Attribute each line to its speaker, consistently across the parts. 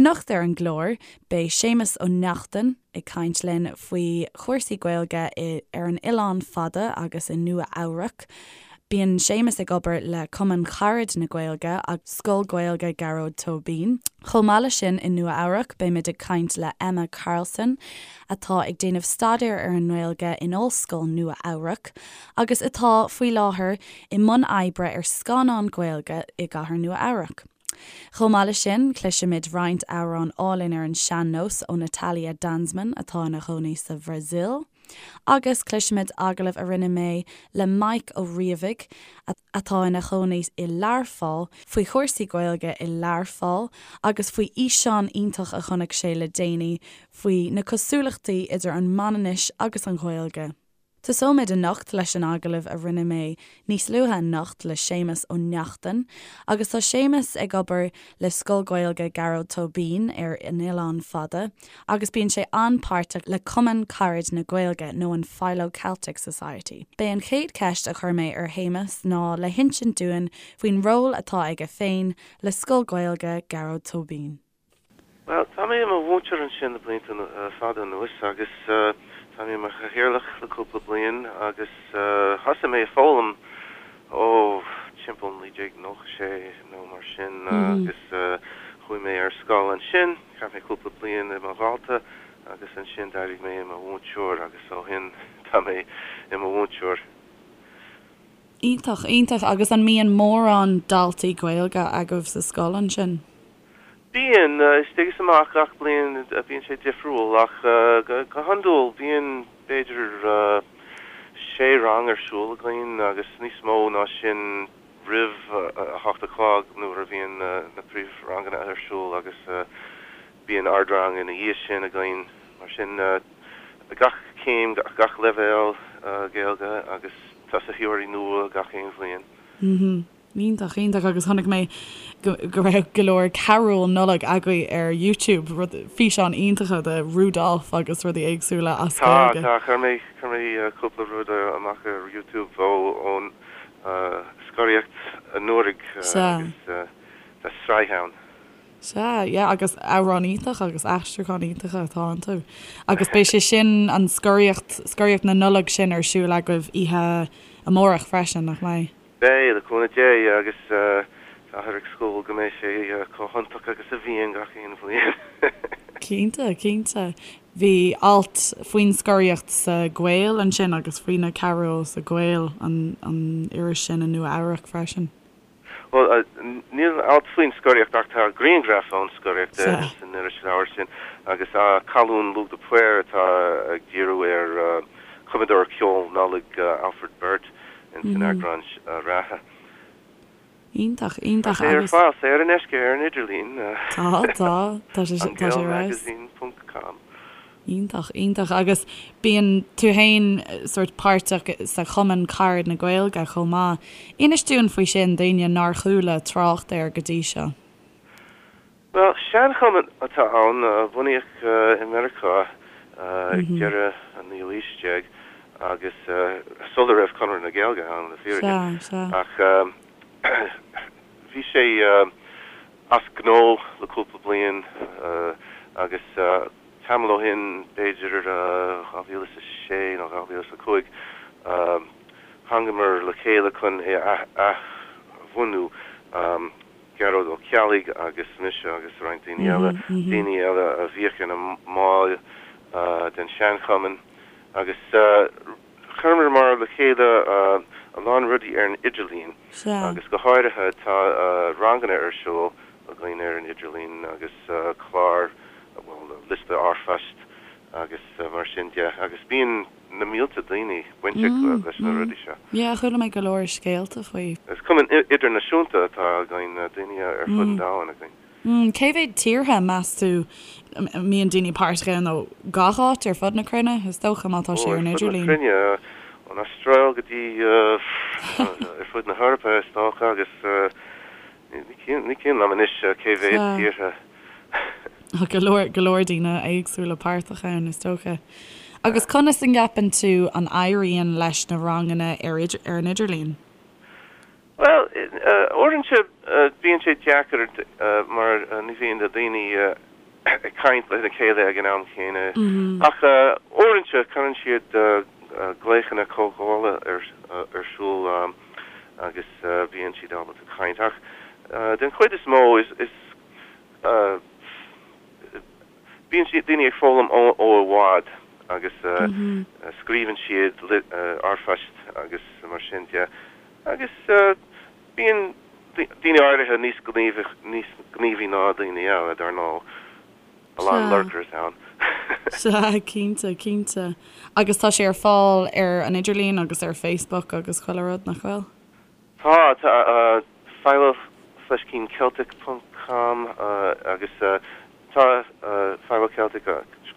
Speaker 1: Anocht ar an gclár, beidh Séamus Ó Neachtain ag caint linn faoi chúrsaí Gaeilge ar an Oileán Fada agus i Nua Eabhrac. Bíonn Séamus ag obair le Cumann Carad na Gaeilge agus Scoil Gaeilge Gearóid Tóibín. Chomh maith leis sin i Nua Eabhrac beimid ag caint le Emma Carlson atá ag déanamh staidéir ar an nGaeilge in Ollscoil Nua Eabhrac agus atá faoi láthair i mbun oibre ar scannán Gaeilge i gcathair Nua Eabhrac. Chomh maith leis sin, cloisfimid roinnt amhrán álainn ar an sean-nós ó Natalia Danzmann atá ina chónaí sa Bhrasaíl, agus cloisfimid agallamh a rinne mé le Mike Ó Riabhaigh, atá ina chónaí i Learpholl, faoi chúrsaí Gaeilge i Learpholl agus faoi fhíseán iontach a chonaic sé le déanaí faoi na cosúlachtaí idir an Manainnis agus an Ghaeilge. Tosóimid anocht leis an agallamh a rinne mé níos luaithe anocht le Séamus Ó Neachtain agus tá Séamus ag obair le Scoil Gaeilge Gearóid Tóibín ar an Oileán Fada agus bíonn sé an-páirteach le Cumann Carad na Gaeilge nó an Philo Celtic Society. B'é an chéad cheist a chuir mé ar Shéamus ná le hinsint dúinn faoin ról atá aige féin le Scoil Gaeilge Gearóid Tóibín.
Speaker 2: Bhuel, tá mé i mo mhúinteoir ansin le blianta fada anuas agus tá mé i mo chathaoirleach le cúpla bliain agus thosaigh mé ag foghlaim ó timpeall 1996 nó mar sin agus chuaigh mé ar scoil ansin, chaith mé cúpla bliain i mo dhalta agus ansin d'éirigh mé i mo mhúinteoir agus ó shin tá mé i mo mhúinteoir.
Speaker 1: Iontach, iontach. Agus an mbíonn mórán daltaí Gaeilge agaibh sa scoil ansin?
Speaker 2: Bíonn, istigh is amach gach bliain bíonn sé difriúil ach go hiondúil bíonn b'fhéidir sé rang ar siúl againn agus níos mó ná sin roimh a hocht a chlog nuair a bhíonn na príomhranganna ar siúl agus bíonn ardrang ina dhiaidh sin againn. Mar sin gach céim, gach leibhéal Gaeilge agus tosaitheoirí nua gach aon bhliain.
Speaker 1: Iontach, iontach agus chonaic mé go go raibh go leor carúil Nollag agaibh ar YouTube, rud, físeáin iontacha de Rudolph agus rudaí éagsúla as
Speaker 2: Tá, Gaeilge. tá, chuir mé, chuir mé cúpla rud amach ar YouTube ó, ón scoraíocht anuraidh
Speaker 1: Sea.
Speaker 2: agus tá sraith ann.
Speaker 1: Sea, yeah, agus amhráin iontach agus aistriúcháin iontacha atá iontu. Agus beidh sé sin, an scoraíocht, scoraíocht na Nollag sin ar siúl agaibh oíche amárach freisin, nach mbeidh?
Speaker 2: Beidh, le cúnamh Dé, agus táthar ag súil go mbeidh sé chomh hiontach agus a bhíonn gach aon bhliain.
Speaker 1: Cinnte, cinnte. Bhí alt faoin scoraíocht sa Gael ansin agus faoi na carúil sa Gael, an an iris sin i Nua Eabhrac freisin.
Speaker 2: Bhuel, níl alt faoin scoraíocht ach tá grianghraf ón scoraíocht san irisleabhar sin agus colún Lugh de Paor atá ag díriú ar chumadóir ceoil Nollag Alfred Burt. ins an eagrán reatha.
Speaker 1: Iontach, iontach
Speaker 2: Tá sé ar fáil saor in aisce ar an idirlíon.
Speaker 1: Tá, tá, tá sé, tá sé ar fheabhas.
Speaker 2: An Gael Magazine ponc com.
Speaker 1: Iontach, iontach. Agus bíonn tú fhéin sórt páirteach sa Chumann Carad na Gaeilge chomh maith. Inis dúinn faoi sin, d'éinne nár chuala trácht air go dtí seo.
Speaker 2: Bhuel, seanchumann atá ann, a bunaíodh i Meiriceá ag deireadh an naoú haois déag agus sula raibh Conradh na Gaeilge ann, le fírinne. Ach bhí sé as gnó le cúpla bliain agus tamall ó shin, b'fhéidir 2006 nó 2005, thángamar le chéile chun é a athbhunú. Gearóid Ó Ceallaigh agus mise agus roinnt daoine eile, daoine eile a bhíodh ina mbaill den seanchumann agus chuireamar le chéile a lán rudaí ar an idirlíon agus go háirithe tá ranganna ar siúl againn ar an idirlíon agus clár, bhuel, liosta r-phoist agus mar sin de agus bíonn. na mílte daoine bainteach leis na rudaí seo.
Speaker 1: Yeah, chuala mé go leor scéalta faoi.
Speaker 2: Is cumann idirnáisiúnta atá againn, daoine ar fud an domhain
Speaker 1: againn. Cé mhéad tíortha, meas tú, a mbíonn daoine páirteach ann ó gach áit ar fud na cruinne, is dócha, má tá sé ar an
Speaker 2: idirlíon? Ó, ar fud
Speaker 1: na
Speaker 2: cruinne, ón Astráil go dtí ar fud na hEorpa, is dócha, agus Ní cuimhin liom anois cé mhéad tíortha.
Speaker 1: Tá go leor, go leor daoine éagsúla páirteach ann, is dócha. Agus conas an gceapann tú an éiríonn leis na ranganna ar ar an idirlíon?
Speaker 2: Bhuel, uaireanta bíonn sé deacair mar ní bhíonn na daoine. Ag caint lena chéile ag an am chéanna. Ach uaireanta cuireann siad glaochanna comhdhála ar siúl agus bíonn siad ábalta caint. Ach den chuid is mó is bíonn siad, daoine ag foghlaim ó i bhfad agus scríobhann siad r-phoist agus mar sin de. Agus bíonn daoine áirithe níos gníomhaí ná daoine eile, dar ndóigh. A lán lurkers ann.
Speaker 1: Sea, cinnte, cinnte. Agus tá sé ar fáil ar an idirlíon agus ar Facebook agus chuile rud, nach bhfuil?
Speaker 2: Tá, tá. Philo fleiscín Celtic ponc com agus tá Philo Celtic,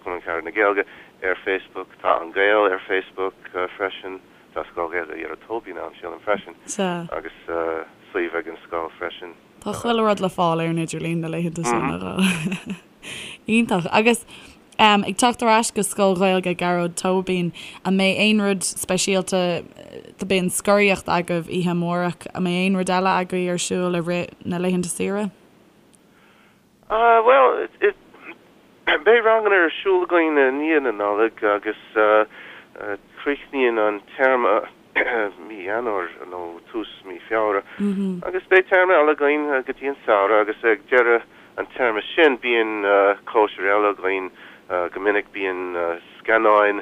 Speaker 2: Cumann Carad na Gaeilge, ar Facebook. Tá An Gael ar Facebook freisin. Tá Scoil Ghaeilge Ghearóid Tóibín ann, sílim, freisin.
Speaker 1: Sea.
Speaker 2: Agus suíomh ag an scoil freisin.
Speaker 1: Tá chuile rud le fáil ar an idirlíon na laethanta seo, nach bhfuil? Iontach. Agus ag teacht ar ais go Scoil Ghaeilge Ghearóid Tóibín, an mbeidh aon rud speisialta, beidh an scoraíocht agaibh oíche amárach, an mbeidh aon rud eile agaibh ar siúl i rith na laethanta saoire?
Speaker 2: Bhuel, beidh ranganna ar siúl againn i ndiaidh na Nollag agus críochnaíonn an téarma mí Eanáir nó tús mí Feabhra agus beidh téarma eile againn go dtí an samhradh agus ag deireadh an téarma sin bíonn cóisir eile againn. Go minic bíonn scannáin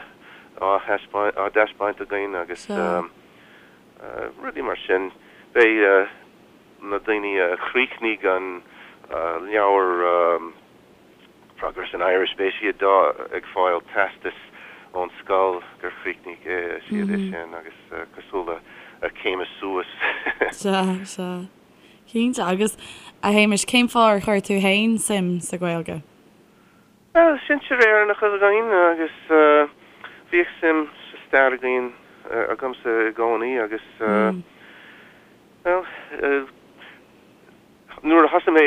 Speaker 2: á dtaispeáint againn agus rudaí mar sin. Beidh. na daoine a chríochnaigh an leabhar Progress in Irish, beidh siad ag fáil teastas ón scoil gur chríochnaigh siad é sin agus cosúil le céim suas.
Speaker 1: Sea, sea. Cinnte. Agus, a Shéamais, cén fáth ar chuir tú fhéin suim sa Ghaeilge?
Speaker 2: Bhuel, sinsir Éireannacha againn agus bhíodh suim sa stair againn, agamsa i gcónaí agus, Bhuel, nuair a thosaigh mé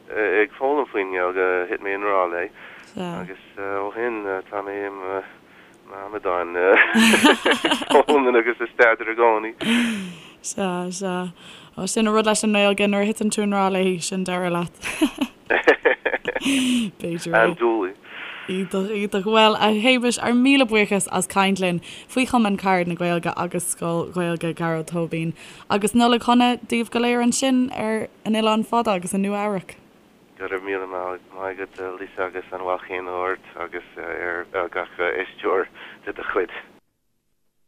Speaker 2: ag foghlaim faoin nGaeilge, thit mé i ngrá léi agus ó shin tá mé i m'amadán ag foghlaim agus ag staidéar i gcónaí.
Speaker 1: Sea, sea. Ó, sin an rud leis an nGaeilge, nuair a thiteann tú i ngrá léi, sin deireadh leat. B'fhéidir é.
Speaker 2: Andúiligh.
Speaker 1: Iontach, iontach. Bhuel, a Shéamais, ár míle buíochas as caint linn faoi Chumann Carad na Gaeilge agus Scoil Ghaeilge Ghearóid Tóibín. Agus Nollaig Shona daoibh go léir ansin ar an Oileán Fada agus i Nua Eabhrac.
Speaker 2: Go raibh míle maith agat, Lisa, agus an bhail chéanna ort agus ar gach éisteoir de do chuid.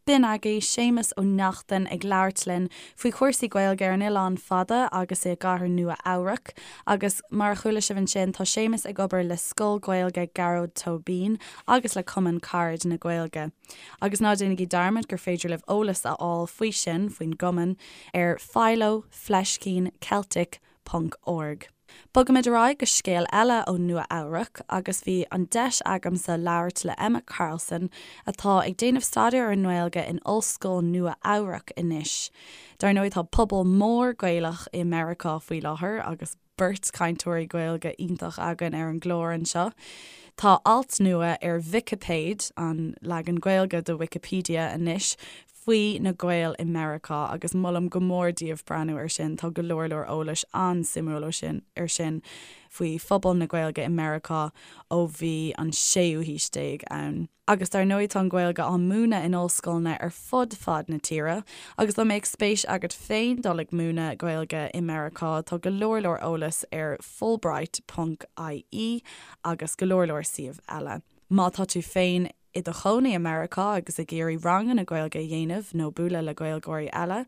Speaker 1: B'in agaibh Séamus Ó Neachtain ag labhairt linn faoi chúrsaí Gaeilge ar an Oileán Fada agus i gcathair Nua Eabhrac. Agus mar a chuala sibh ansin, tá Séamus ag obair le Scoil Ghaeilge Gearóid Tóibín agus le Cumann Carad na Gaeilge. Agus ná déanaigí dearmad gur féidir libh eolas a fháil faoi sin, faoin gcumann, ar philo fleiscín celtic ponc org. Bogaimid ar aghaidh go scéal eile ó Nua Eabhrac agus bhí an deis agamsa labhairt le Emma Carlson atá ag déanamh staidéar ar an nGaeilge in Ollscoil Nua Eabhrac anois. Dar ndóigh tá pobal mór Gaelach i Meiriceá faoi láthair agus beirt cainteoirí Gaeilge iontach againn ar an gclár anseo. Tá alt nua ar Vicipéid, an leagan Gaeilge de Wikipedia anois, faoi na Gaeil i Meiriceá agus molaim go mór daoibh breathnú ar sin, tá go leor leor eolais an-suimiúil ó sin ar sin faoi phobal na Gaeilge i Meiriceá ó bhí an séú haois déag ann. Agus dar ndóigh tá an Ghaeilge á múineadh in ollscoileanna ar fud fad na tíre agus dá mbeadh spéis agat féin dul ag múineadh Gaeilge i Meiriceá tá go leor leor eolais ar fulbright ponc ie agus go leor leor suíomh eile. Má tá tú féin i do chónaí i Meiriceá agus ag iarraidh ranganna Gaeilge a dhéanamh nó bualadh le Gaeilgeoirí eile,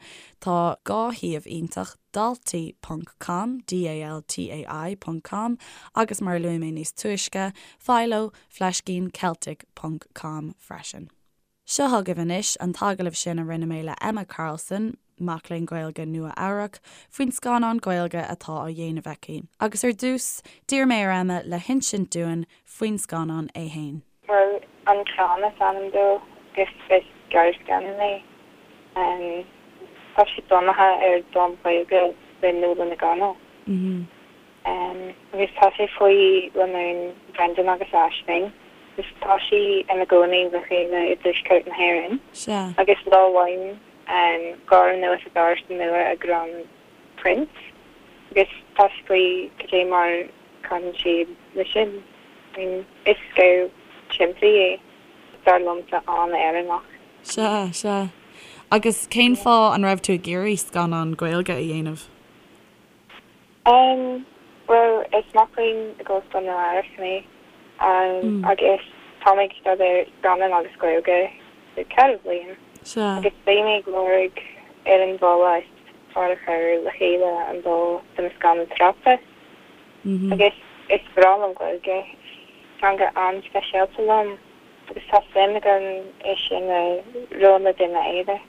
Speaker 1: tá 2 shuíomh iontach, daltai ponc com, D-A-L-T-A-I ponc com, agus mar a luaigh mé níos túisce, philo fleiscín celtic ponc com freisin. Seo chugaibh anois an t-agallamh sin a rinne mé le Emma Carlson, mac léinn Gaeilge Nua-Eabhrac, faoin scannán Gaeilge atá á dhéanamh aici. Agus ar dtús, d'iarr mé ar Emma le hinsint dúinn faoin scannán é fhéin.
Speaker 3: Bhuel, An Clann is ainm dó agus is gearrscannán é. Tá sé bunaithe ar dán Gaeilge le Nuala Nic Dhonaill. Agus tá sé faoi lánúin Brendan agus Aisling agus tá sí ina gcónaí le chéile i dtuaisceart na hÉireann. Agus lá amháin gabhann anuas a gcomharsa nua a gcrann print agus tá sé faoi cad é mar caitheann siad le sin. I mean, is scéal simplí é, dar liomsa, an-Éireannach.
Speaker 1: Sea, sea. Agus cén fáth an raibh tú ag iarraidh scannán Gaeilge a dhéanamh?
Speaker 3: Em, bhuel, is mac léinn i gOllscoil Nua Eabhrac mé, agus tá mé ag staidéar scannán agus Gaeilge le ceithre bhliain.
Speaker 1: Sea.
Speaker 3: Agus bhí mé ag lorg ar an bhealach is fearr a chur le chéile an dá do mo scannán tráchtais. Agus is breá liom Gaeilge, is teanga an-speisialta liom agus tá suim agam é sin a roinnt le duine eile.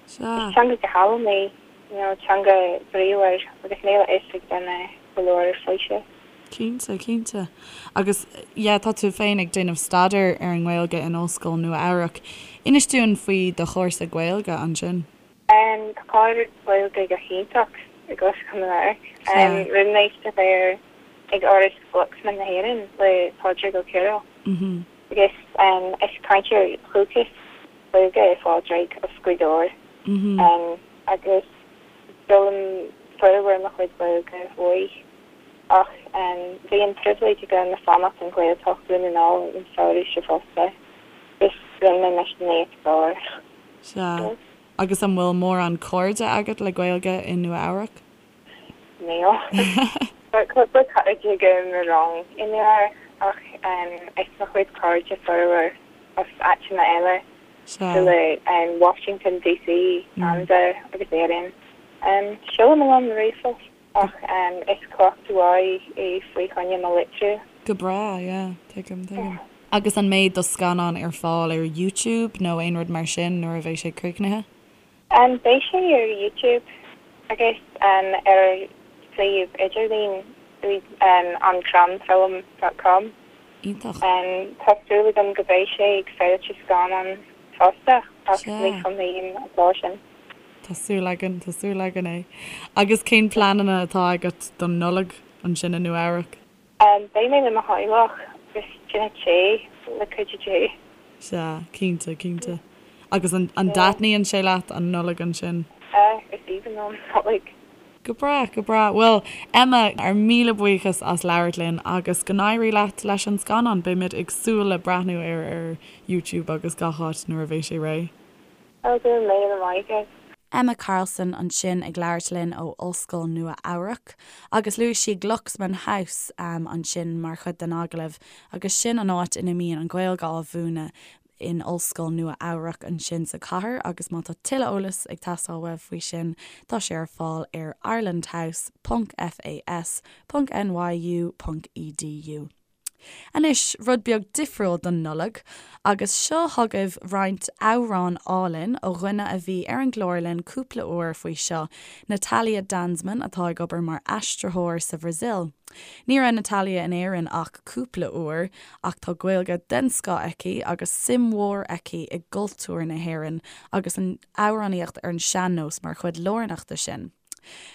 Speaker 1: Sea.
Speaker 3: Is teanga go hálainn í, you know, teanga bríomhar agus níl a fhios ag duine go leor faoi sin.
Speaker 1: Cinnte, cinnte. Agus yeah, tá tú féin ag déanamh staidéir ar an nGaeilge in Ollscoil Nua Eabhrac. Inis dúinn faoi do chúrsa Gaeilge ansin.
Speaker 3: Tá clár Gaeilge go hiontach i gOllscoil Nua Eabhrac. Rinne mé staidéar ag Áras Glucksman na hÉireann le Pádraig Ó Cearúil agus is cainteoir dúchais Gaeilge é Pádraig as Gaoth Dobhair agus d'fhoghlaim formhór mo chuid Gaeilge uaidh ach bhí an pribhléid agam fanacht i nGaeltacht Dhún na nGall an samhradh seo fosta agus rinne mé mise níos fearr.
Speaker 1: Sea. Agus an bhfuil mórán cairde agat le Gaeilge i Nua Eabhrac?
Speaker 3: Níl. Tá cúpla cairde agam i rang i Nua Eabhrac ach is mo chuid cairde formhór as áiteanna eile
Speaker 1: Sea.
Speaker 3: le Washington DC, Ceanada agus Éirinn. Seolaim a lán ríomhphost ach is cleachtadh mhaith é faoi choinne mo litriú.
Speaker 1: Go breá, yeah, tuigim, tuigim. Agus an mbeidh do scannán ar fáil ar YouTube nó aon rud mar sin nuair a bheidh sé críochnaithe?
Speaker 3: Beidh sé ar YouTube agus ar suíomh idirlín ancrannfilm dot com.
Speaker 1: Iontach.
Speaker 3: Tá súil agam go mbeidh sé ag féilte scannán fosta ach ní chumhaím an lá sin.
Speaker 1: Tá súil againn, tá súil againn é. Agus cén pleananna atá agat don Nollaig ansin i Nua Eabhrac?
Speaker 3: Beidh mé le mo theaghlach agus tine tae le cuidiú Dé.
Speaker 1: Sea, cinnte, cinnte. Agus an dtaitníonn sé leat an Nollaig ansin?
Speaker 3: Sea, is aoibhinn liom Nollaig.
Speaker 1: Go breá, go breá. Bhuel, Emma, ár míle buíochas as labhairt linn agus go n-éirí leat leis an scannán. Beimid ag súil le breathnú air ar YouTube agus gach áit nuair a bheidh sé réidh.
Speaker 3: Go raibh míle maith agat.
Speaker 1: Emma Carlson ansin ag labhairt linn ó Ollscoil Nua Eabhrac agus luaigh sí Glucksman House ansin mar chuid den agallamh agus sin an áit ina mbíonn an Ghaeilge á mhúineadh in Ollscoil Nua Eabhrac ansin sa chathair agus má tá tuilleadh eolais ag teastáil uaibh faoi sin tá sé ar fáil ar irelandhouse ponc fas ponc nyu ponc edu. Anois, rud beag difriúil don Nollaig, agus seo chugaibh roinnt amhrán álainn ó dhuine a bhí ar an gclár linn cúpla uair faoi seo, Natalia Danzmann atá ag obair mar aistritheoir sa Bhrasaíl. Ní raibh Natalia in Éirinn ach cúpla uair, ach tá Gaeilge den scoth aici agus suim mhór aici i gcultúr na hÉireann agus an amhránaíocht ar an sean-nós mar chuid lárnach de sin.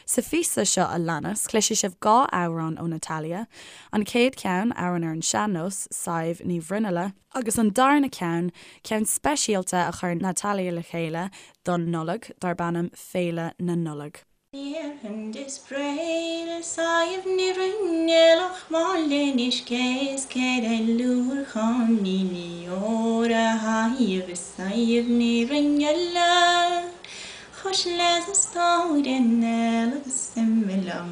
Speaker 1: Sa phíosa seo a leanas, cloisfidh sibh 2 amhrán ó Natalia, an chéad cheann, amhrán ar an sean-nós, Sadhbh Ní Bhruinnealla, agus an darna ceann, ceann speisialta a chuir Natalia le chéile don Nollaig, darb ainm Féile na Nollag.
Speaker 4: Chos leis an stóirín eile agus imigh liom.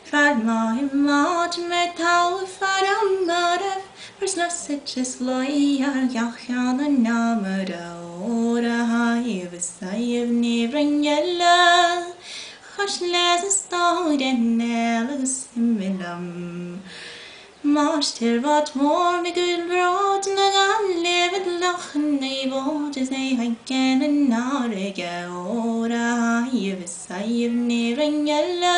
Speaker 4: Fear maith i mbád mé togha fear amaireamh mar snas is luí ar gach ceann an amaire ór a thaobh is thaobh ní roinn eile. Chos leis an stóirín eile agus imigh liom. Máistir bád mór me go bród na Gaillimhe Loch Naomh is é ag an fharraige ór a thaobh is thaobh ní roinn eile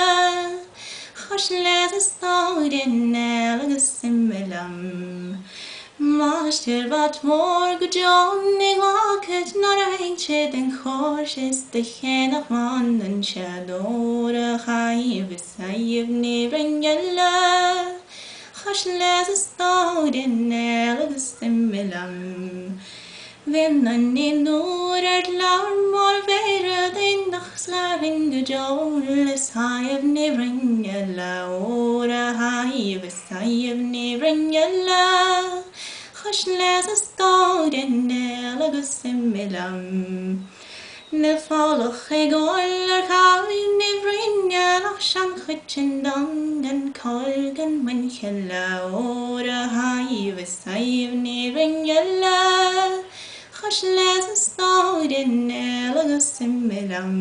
Speaker 4: Chos leis an stóirín eile agus imigh liom. Máistir bád mór go deo ní ghlacfad nár théid sé den chóir is do cheannach mbaineann sé ór a thaobh is Thaobh ní roinn eile, chos leis an stóirín eile agus imigh liom. Bhí nuair ar labhair mar bhéara nach slarin go deo le Sadhbh Ní Rinn le ór a Shadhbh is Sadhbh Ní Rinn le chois leis a stór i néal agus imigh liom. Níl folach ag gabháil ar Shadhbh Ní Bhroin ach seanchoiteann donn gan cáil gan muinchille le ór a Shadhbh is Sadhbh Ní Rinn le chois leis a stór i néal agus imigh liom.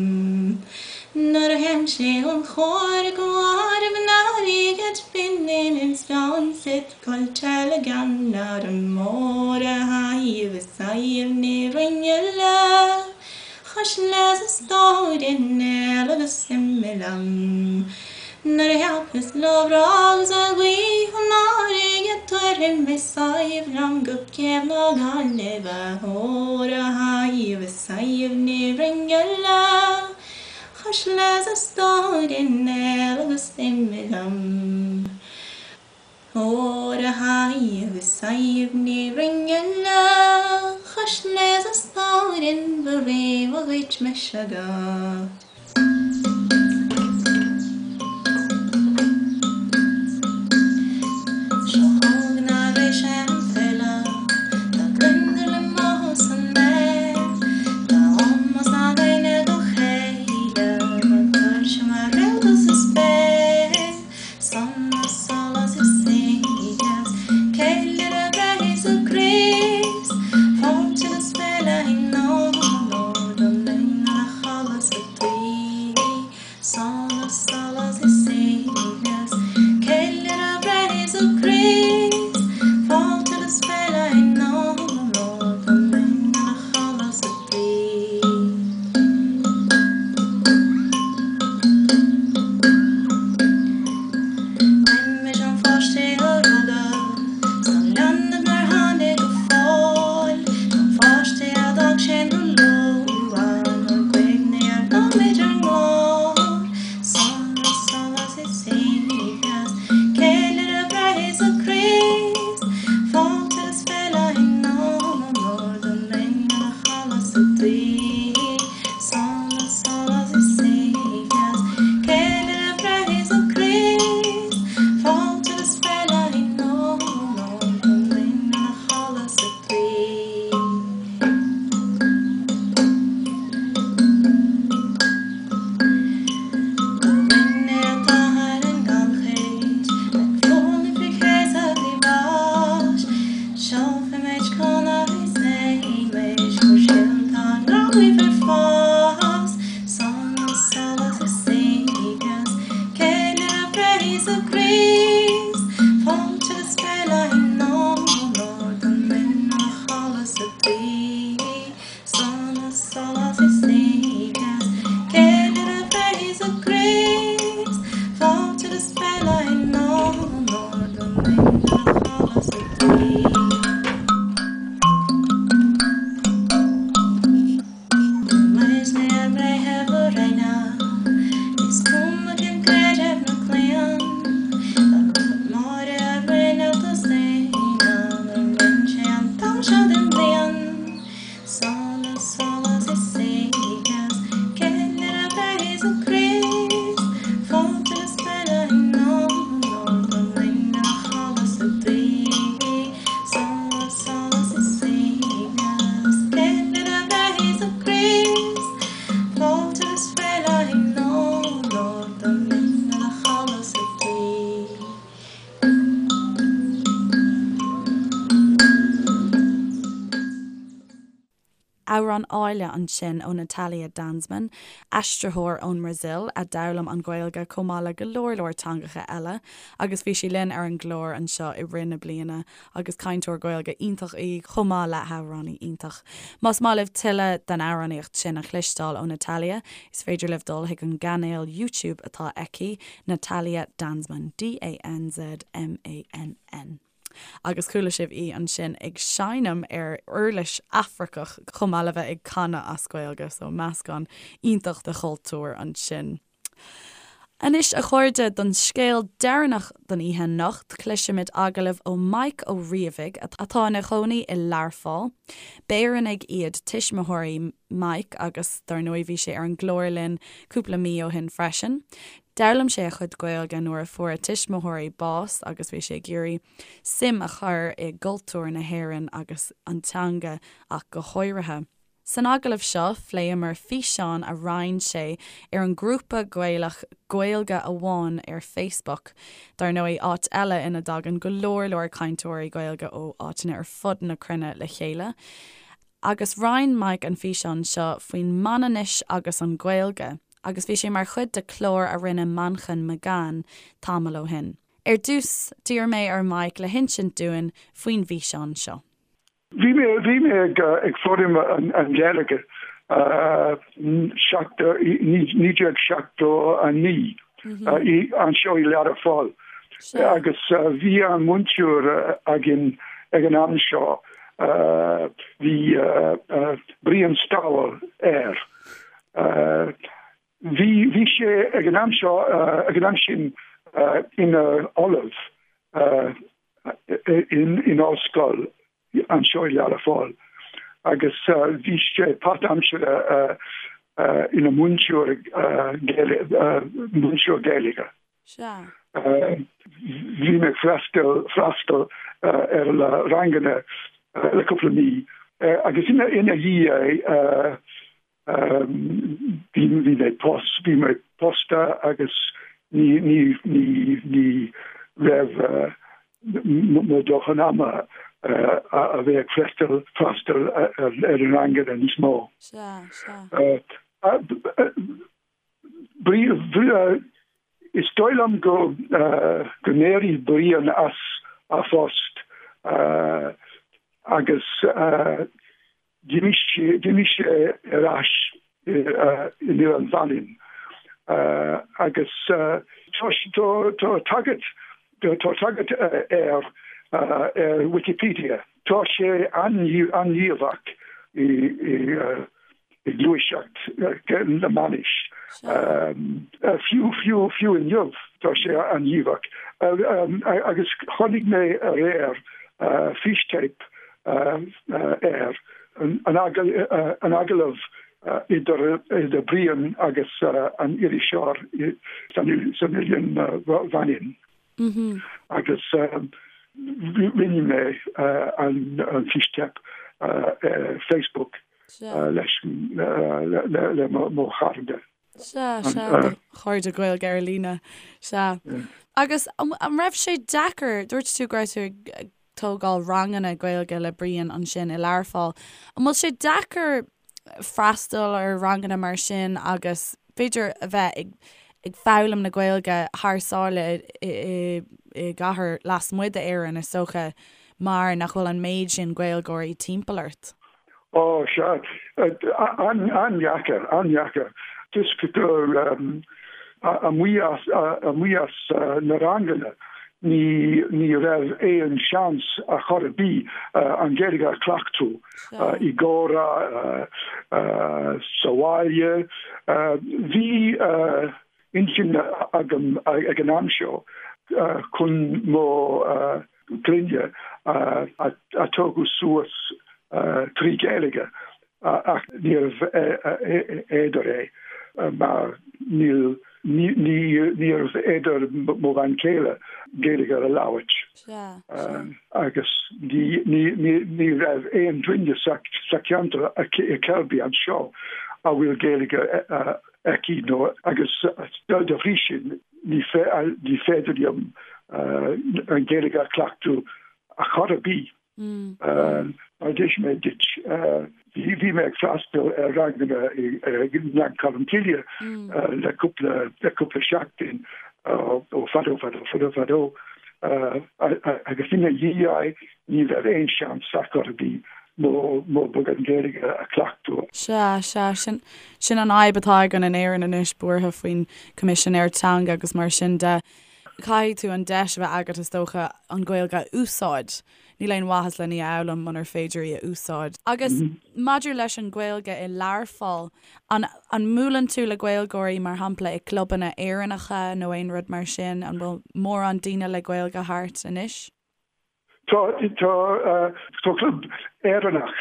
Speaker 4: Nuair a théimse ón chóir go áireamh an airgid binn in sláinte Coillte le gan arm mór a Shadhbh is Sadhbh Ní Rinn le chois leis a stór i néal agus imigh liom. Nuair a thiocfas lá breá agus an ghaoth an fharraige tabharfaidh mé Sadhbh liom go céibh na Gaillimhe ór a Shadhbh is Sadhbh Ní Rinn le chois leis a stór i néal agus imigh liom. Ór a Shadhbh is Sadhbh Ní Rinn le chois leis a stóirín ba réabha dhuit mise agat. Seo chugainn arís an file, tá gliondar le mothú san aer, tá ómós againne dá chéile, tá tuirse mar réalta sa spéir. Sonas, sólás is saoibhneas, Ceiliúradh breith Íosa Críost, Fáilte agus féile i onóir don linn ina chodladh sa tuí. Sonas, sólás is saoibhneas, Ceiliúradh breith Íosa Críost, Fáilte agus féile i onóir don linn ina chodladh sa tuí. Roimis an pháiste a rugadh 's an leanbh nár tháinig go fóill, don pháiste a d'fhág sinn ró-luath, ár gcuimhne ár nóiméid ár nglór. Sonas, sólás is saoibhneas, ceiliúradh breith Íosa Críost, fáilte is féile in onóir don linn ina chodladh sa tuí. Sonas, sólás is saoibhneas, ceiliúradh breith Íosa Críost, fáilte is féile in onóir don linn ina chodladh sa tuí. Go bhfuil an t-athair i ngannchuid, ag foghlaim faoi chéasadh bhí bháis, Seolfaimid conradh is éimis gur sin tá an gráinne ar fás. Sonas, sólás is saoibhneas, ceiliúradh breith Íosa Críost, fáilte agus féile in onóir don linn ina chodladh sa tuí. Sonas, sólás is saoibhneas, ceiliúradh breith Íosa Críost, fáilte agus féile in onóir don linn ina chodladh sa tuí. Muidne ár mBreitheamh araon, is cuma cén creideamh nó claon, dá Máire ár réalta saona, nuair rinne sé an t-am seo den bhliain. Sonas, sólás is saoibhneas, ceiliúradh breith Íosa Críost, fáilte agus féile in onóir don linn ina chodladh sa tuí. Sonas, sólás is saoibhneas, ceiliúradh breith Íosa Críost, fáilte agus féile in onóir don linn ina chodladh sa tuí.
Speaker 1: Amhrán áille ansin ó Natalia Danzmann, aistritheoir ón mBrasaíl a d'fhoghlaim an Ghaeilge chomh maith le go leor leor teangacha eile agus bhí sí linn ar an gclár anseo i rith na bliana agus cainteoir Gaeilge iontach í chomh maith le hamhránaí iontach. Más maith libh tuilleadh den amhránaíocht sin a chloisteáil ó Natalia, is féidir libh dul chuig an gcainéal YouTube atá aici, Natalia Danzmann, D-A-N-Z-M-A-N-N. Agus chuala sibh í ansin ag seinm ar uirlis Afracach chomh maith le bheith ag canadh as Gaeilge, so meascán iontach de chultúir ansin. Anois, a chairde, don scéal deireanach don oíche anocht, cloisfimid agallamh ó Mike Ó Riabhaigh, atá ina chónaí i Learpholl. B'Éireannaigh iad tuismitheoirí Mike agus, dar ndóigh, bhí sé ar an gclár linn cúpla mí ó shin freisin. D'fhoghlaim sé a chuid Gaeilge nuair a fuair a tuismitheoirí bás agus bhí sé ag iarraidh suim a chur i gcultúr na hÉireann agus an teanga ach go háirithe. San agallamh seo, phléamar físeán a roinn sé ar an ngrúpa Gaelach Gaeilge Amháin ar Facebook, dar ndóigh, áit eile ina dtagann go leor leor cainteoirí Gaeilge ó áiteanna ar fud na cruinne le chéile. Agus roinn Mike an físeán seo faoin Manainnis agus an Ghaeilge, agus bhí sé mar chuid de chlár a rinne Manchain McGann tamall ó shin. Ar dtús, d'iarr mé ar Mike le hinsint dúinn faoin bhfíseán seo.
Speaker 5: Bhí mé bhí mé ag ag foghlaim an Ghaeilge 1979 anseo i Learpholl agus bhí an múinteoir againn ag an am seo bhí Brian Stowell air. Bhí bhí sé ag an am seo ag an am sin ina ollamh in ollscoil anseo i Learpholl agus bhí sé páirtaimseartha ina mhúinteoir múinteoir Gaeilge. Bhí mé ag freastal freastal ar na ranganna le cúpla mí agus ina dhiaidh Bhí bhí mé pos bhí mé pósta agus ní ní ní ní raibh mo dóthain ama a bheith ag freastal freastal ar ar an ranganna níos mó.
Speaker 1: Sea, sea.
Speaker 5: Is dóigh liom go go n-éirigh Brian as a phost agus D'imigh sé ar ais in Oileán Mhanainn agus tá tagairt tá tagairt air ar Wikipedia. Tá sé an-ghníomhach i ngluaiseacht na Manainnis. Fiú fiú fiú inniu tá sé an-ghníomhach. Agus chonaic mé aréir fístéip air, an agallamh idir Brian agus an iriseoir san Oileán Mhanainn. Agus rinne mé an fístéip ar Facebook leis le mo chairde.
Speaker 1: Sea, sea, do chairde Gaeilge ar líne. Sea. Agus an raibh sé deacair, dúirt tú go raibh tú ag tógáil ranganna Gaeilge le Brian ansin i Learpholl. An bhfuil sé deacair freastal ar ranganna mar sin agus b'fhéidir a bheith ag ag foghlaim na Gaeilge thar sáile i i gcathair lasmuigh d'Éirinn is dócha mar nach bhfuil an méid sin Gaeilgeoirí timpeall ort?
Speaker 5: Ó, sea. An-dheacair, an-dheacair. Toisc gur amuigh as, amuigh as na ranganna, ní, ní raibh aon seans ar chor ar bith an Ghaeilge a chleachtadh i gcomhrá sa bhaile. Bhí intinn agam ag an am seo chun mo clainne a tógadh suas trí Ghaeilge ach níorbh fhéidir é mar níl níorbh fhéidir mo bhean chéile Gaeilge a labhairt agus ní raibh aon duine sa cheantar i Selby anseo a bhfuil Gaeilge aici nó agus dá bhrí sin ní féidir liom an Ghaeilge a chleachtadh ar chor ar bith. Mar a d'inis mé duit, bhí mé ag freastal ar ranganna i nGleann Cholm Cille le cúpla le cúpla seachtain ó fadó fadó fadó fadó agus ina dhiaidh ní raibh aon seans ar chor ar bith mo mo beagán Gaeilge a chleachtadh.
Speaker 1: Sea, sea, sin sin an fhadhb atá againn in Éirinn anois, buartha faoin Coimisinéir Teanga agus mar sin de. Caithfidh tú an deis a bheith agat is dócha an Ghaeilge a úsáid. Níl aon mhaitheas len í a fhoghlaim munar féidir í a úsáid. Agus maidir leis an Ghaeilge i Learpholl, an an mbuaileann tú le Gaeilgeoirí mar shampla i gclubanna Éireannacha nó aon rud mar sin? An bhfuil mórán daoine le Gaeilge thart anois?
Speaker 5: Tá tá tá club Éireannach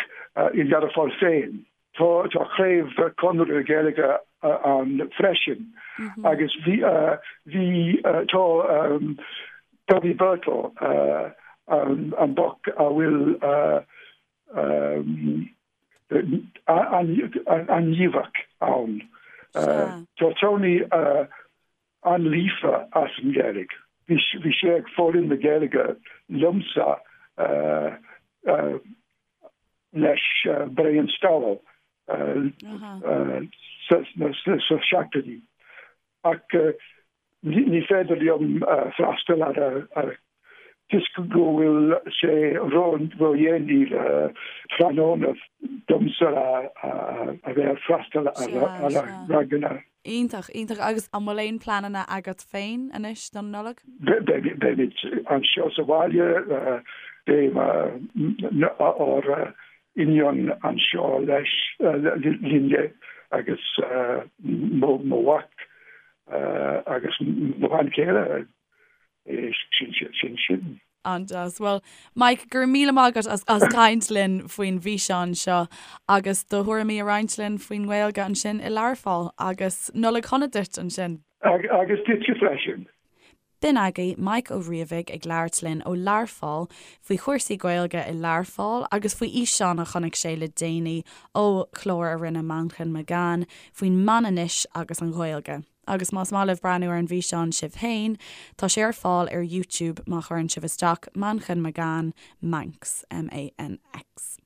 Speaker 5: i Learpholl féin. Tá tá craobh Conradh na Gaeilge ann freisin agus bhí bhí tá Bobby Birtle an boc a bhfuil an-ghníomhach ann. Tá Tony an-líofa as an Ghaeilge. Bhí sé ag foghlaim na Gaeilge liomsa leis Brian Stowell sna seachtóidí. Ach ní féidir liom freastal ar toisc go bhfuil sé ródhéanaí tráthnóna domsa a bheith ag freastal ar ranganna.
Speaker 1: Iontach, iontach. Agus an bhfuil aon pleananna agat féin anois don Nollaig?
Speaker 5: Beimid anseo sa bhaile, beidh ár iníon anseo leis linne agus mo mhac agus mo bhean chéile. Sin sin.
Speaker 1: An-deas. Bhuel, Mike, go raibh míle maith agat as as caint linn faoin bhfíseán seo agus do thuairimí a roinnt linn faoin nGaeilge ansin i Learpholl. Agus Nollaig shona duit ansin.
Speaker 5: Agus duitse freisin.
Speaker 1: B'in agaibh Mike Ó Riabhaigh ag labhairt linn ó Learpholl faoi chúrsaí Gaeilge i Learpholl agus faoi fhíseán a chonaic sé le déanaí ó chlár a rinne Manchain McGann faoin Manainnis agus an Ghaeilge. Agus más maith libh breathnú ar an bhfíseán sibh féin, tá sé ar fáil ar YouTube má chuireann sibh isteach Manchain McGann Manx, M-A-N-X.